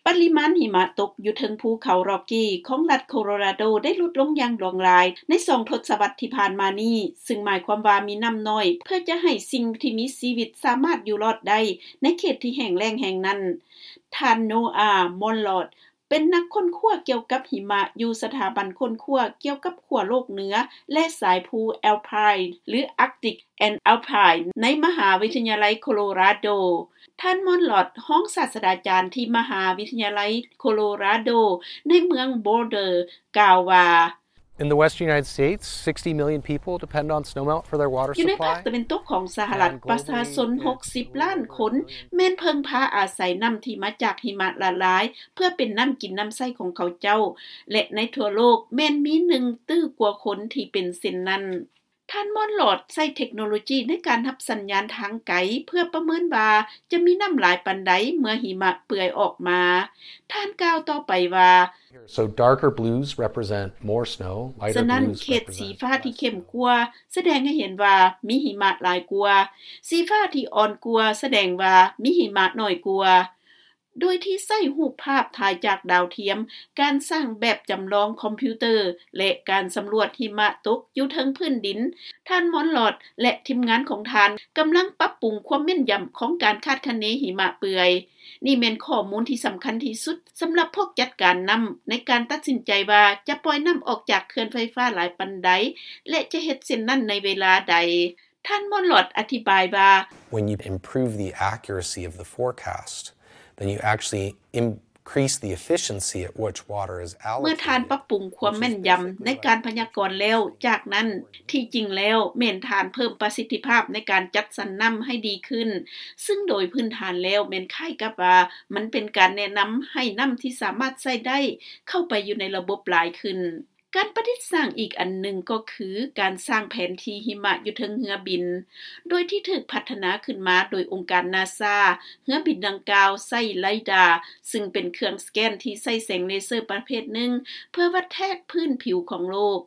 ປະລິມານຫິມະຕົກຢູ່ເທິງພູເຂົາ Rocky ຂອງລັດໂຄໂລຣາໂດ ໄດ້ຫຼຸດລົງຢ່າງຫຼວງຫຼາຍໃນສອງທົດສະວັດທີ່ຜ່ານມານີ້, ຊຶ່ງໝາຍຄວາມວ່າມີນ້ຳໜ້ອຍ ເພື່ອຈະໃຫ້ສິ່ງທີ່ມີຊີວິດສາມາດຢູ່ລອດໄດ້ໃນເຂດທີ່ແຫ້ງແລ້ງແຫ່ງນັ້ນ. ທ່ານ ໂນອາ ມອນລອດ ເປັນນັກຄົ້ນຄວ້າກ່ຽວກັບຫິມະຢູ່ສະຖາບັນຄົ້ນຄວ້າກ່ຽວກັບຂົ້ວໂລກເໜືອ ແລະ ສາຍພູ Alpine ຫຼື Arctic and Alpine ໃນມະຫາວິທະຍາໄລໂຄໂລຣາໂດ. ທ່ານ ມອນລອດ ຮອງສາດສະດາຈານທີ່ມະຫາວິທະຍາໄລໂຄໂລຣາໂດ ໃນເມືອງ Boulder ກ່າວວ່າ: In the western United States, sixty million people depend on snowmelt for their water ຢູ່ໃນພາກ supply. ຕາເວັນຕົກຂອງສະຫະລັດ, and globally, ປະຊາຊົນ it's ຫົກສິບລ້ານຄົນ ແມ່ນເພິ່ງພາອາໄສນ້ຳທີ່ມາຈາກຫິມະລະລາຍ ເພື່ອເປັນນ້ຳກິນນ້ຳໃຊ້ຂອງເຂົາເຈົ້າ ແລະ ໃນທົ່ວໂລກແມ່ນມີໜຶ່ງຕື້ກວ່າຄົນທີ່ເປັນເຊັ່ນນັ້ນ. ທ່ານ ມອນລອດ ໃຊ້ເທັກໂນໂລຈີໃນການຮັບສັນຍານທາງໄກ ເພື່ອປະເມີນວ່າຈະມີນ້ຳຫຼາຍປານໃດເມື່ອຫິມະເປືອຍອອກມາ. ທ່ານກ່າວຕໍ່ໄປວ່າ: So darker blues represent more snow, lighter blues represent less snow. ສະນັ້ນ ເຂດສີຟ້າທີ່ເຂັ້ມກວ່າສະແດງໃຫ້ເຫັນວ່າມີຫິມະຫຼາຍກວ່າ, ສີຟ້າທີ່ອ່ອນກວ່າສະແດງວ່າມີຫິມະໜ້ອຍກວ່າ. ໂດຍທີ່ໃຊ້ຮູບພາບຖ່າຍຈາກດາວທຽມ, ການສ້າງແບບຈຳລອງຄອມພິວເຕີ ແລະ ການສຳຫຼວດຫິມະຕົກຢູ່ເທິງພື້ນດິນ, ທ່ານ ມອນລອດ ແລະ ທີມງານຂອງທ່ານກຳລັງປັບປຸງຄວາມແມ່ນຢຳຂອງການຄາດຄະເນຫິມະເປືອຍ. ນີ້ແມ່ນຂໍ້ມູນທີ່ສຳຄັນທີ່ສຸດສຳລັບພວກຈັດການນ້ຳ ໃນການຕັດສິນໃຈວ່າຈະປ່ອຍນ້ຳອອກຈາກເຂື່ອນໄຟຟ້າຫຼາຍປານໃດ ແລະ ຈະເຮັດເຊັ່ນນັ້ນໃນເວລາໃດ. ທ່ານ ມອນລອດ ອະທິບາຍວ່າ: When you improve the accuracy of the forecast, then you actually increase the efficiency at which water is allocated, ເມື່ອທ່ານປັບປຸງຄວາມແມ່ນຢຳໃນການພະຍາກອນແລ້ວ, ຈາກນັ້ນ ທີ່ຈິງແລ້ວແມ່ນທ່ານເພີ່ມປະສິດທິພາບໃນການຈັດສັນນ້ຳໃຫ້ດີຂຶ້ນ, ຊຶ່ງໂດຍພື້ນຖານແລ້ວແມ່ນຄ້າຍກັບວ່າມັນເປັນການແນະນຳໃຫ້ນ້ຳທີ່ສາມາດໃຊ້ໄດ້ເຂົ້າໄປຢູ່ໃນລະບົບຫຼາຍຂຶ້ນ. ການປະດິດສ້າງອີກອັນໜຶ່ງກໍຄືການສ້າງແຜນທີ່ຫິມະຢູ່ເທິງເຮືອບິນ, ໂດຍທີ່ຖືກພັດທະນາຂຶ້ນມາໂດຍອົງການນາຊາ. ເຮືອບິນດັ່ງກ່າວໃຊ້ໄລດາ, ຊຶ່ງເປັນເຄື່ອງສະແກນທີ່ໃຊ້ແສງເລເຊີປະເພດໜຶ່ງ ເພື່ອວັດແທກພື້ນຜິວຂອງໂລກ.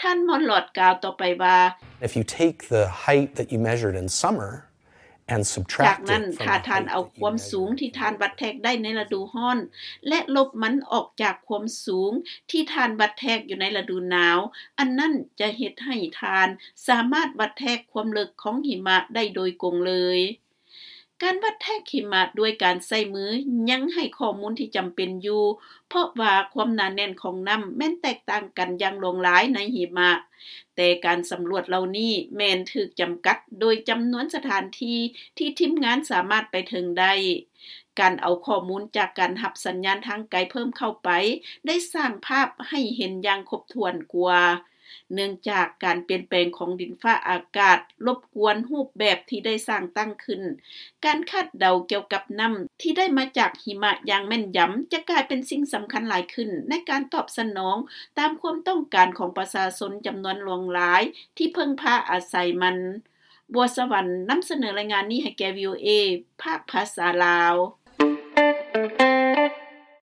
ທ່ານ ມອນລອດ ກ່າວຕໍ່ໄປວ່າ: If you take the height that you measured in summer and subtract it from the height that you measured in winter, ຈາກນັ້ນ ຖ້າທ່ານເອົາຄວາມສູງທີ່ທ່ານວັດແທກໄດ້ໃນລະດູຮ້ອນ ແລະ ລົບມັນອອກຈາກຄວາມສູງທີ່ທ່ານວັດແທກຢູ່ໃນລະດູໜາວ, ອັນນັ້ນຈະເຮັດໃຫ້ທ່ານສາມາດວັດແທກຄວາມເລິກຂອງຫິມະໄດ້ໂດຍກົງເລີຍ. ການວັດແທກຫິມະດ້ວຍການໃຊ້ມືຍັງໃຫ້ຂໍ້ມູນທີ່ຈຳເປັນຢູ່, ເພາະວ່າຄວາມໜາແໜ້ນຂອງນ້ຳແມ່ນແຕກຕ່າງກັນຢ່າງຫຼວງຫຼາຍໃນຫິມະ, ແຕ່ການສຳຫຼວດເຫຼົ່ານີ້ແມ່ນຖືກຈຳກັດໂດຍຈຳນວນສະຖານທີ່ທີ່ທີມງານສາມາດໄປເຖິງໄດ້. ການເອົາຂໍ້ມູນຈາກການຮັບສັນຍານທາງໄກເພີ່ມເຂົ້າໄປ ໄດ້ສ້າງພາບໃຫ້ເຫັນຢ່າງຄົບຖ້ວນກວ່າ. ເນື່ອງຈາກການປ່ຽນແປງຂອງດິນຟ້າອາກາດລົບກວນຮູບແບບທີ່ໄດ້ສ້າງຕັ້ງຂຶ້ນ, ການຄາດເດົາກ່ຽວກັບນ້ຳທີ່ໄດ້ມາຈາກຫິມະຢ່າງແມ່ນຢຳຈະກາຍເປັນສິ່ງສຳຄັນຫຼາຍຂຶ້ນໃນການຕອບສະໜອງຕາມຄວາມຕ້ອງການຂອງປະຊາຊົນຈຳນວນຫຼວງຫຼາຍທີ່ເພິ່ງພາອາໄສມັນ. ບົວສະຫວັນ ນຳສະເໜີລາຍງານນີ້ໃຫ້ແກ່ ວີໂອເອ ພາກພາສາລາວ.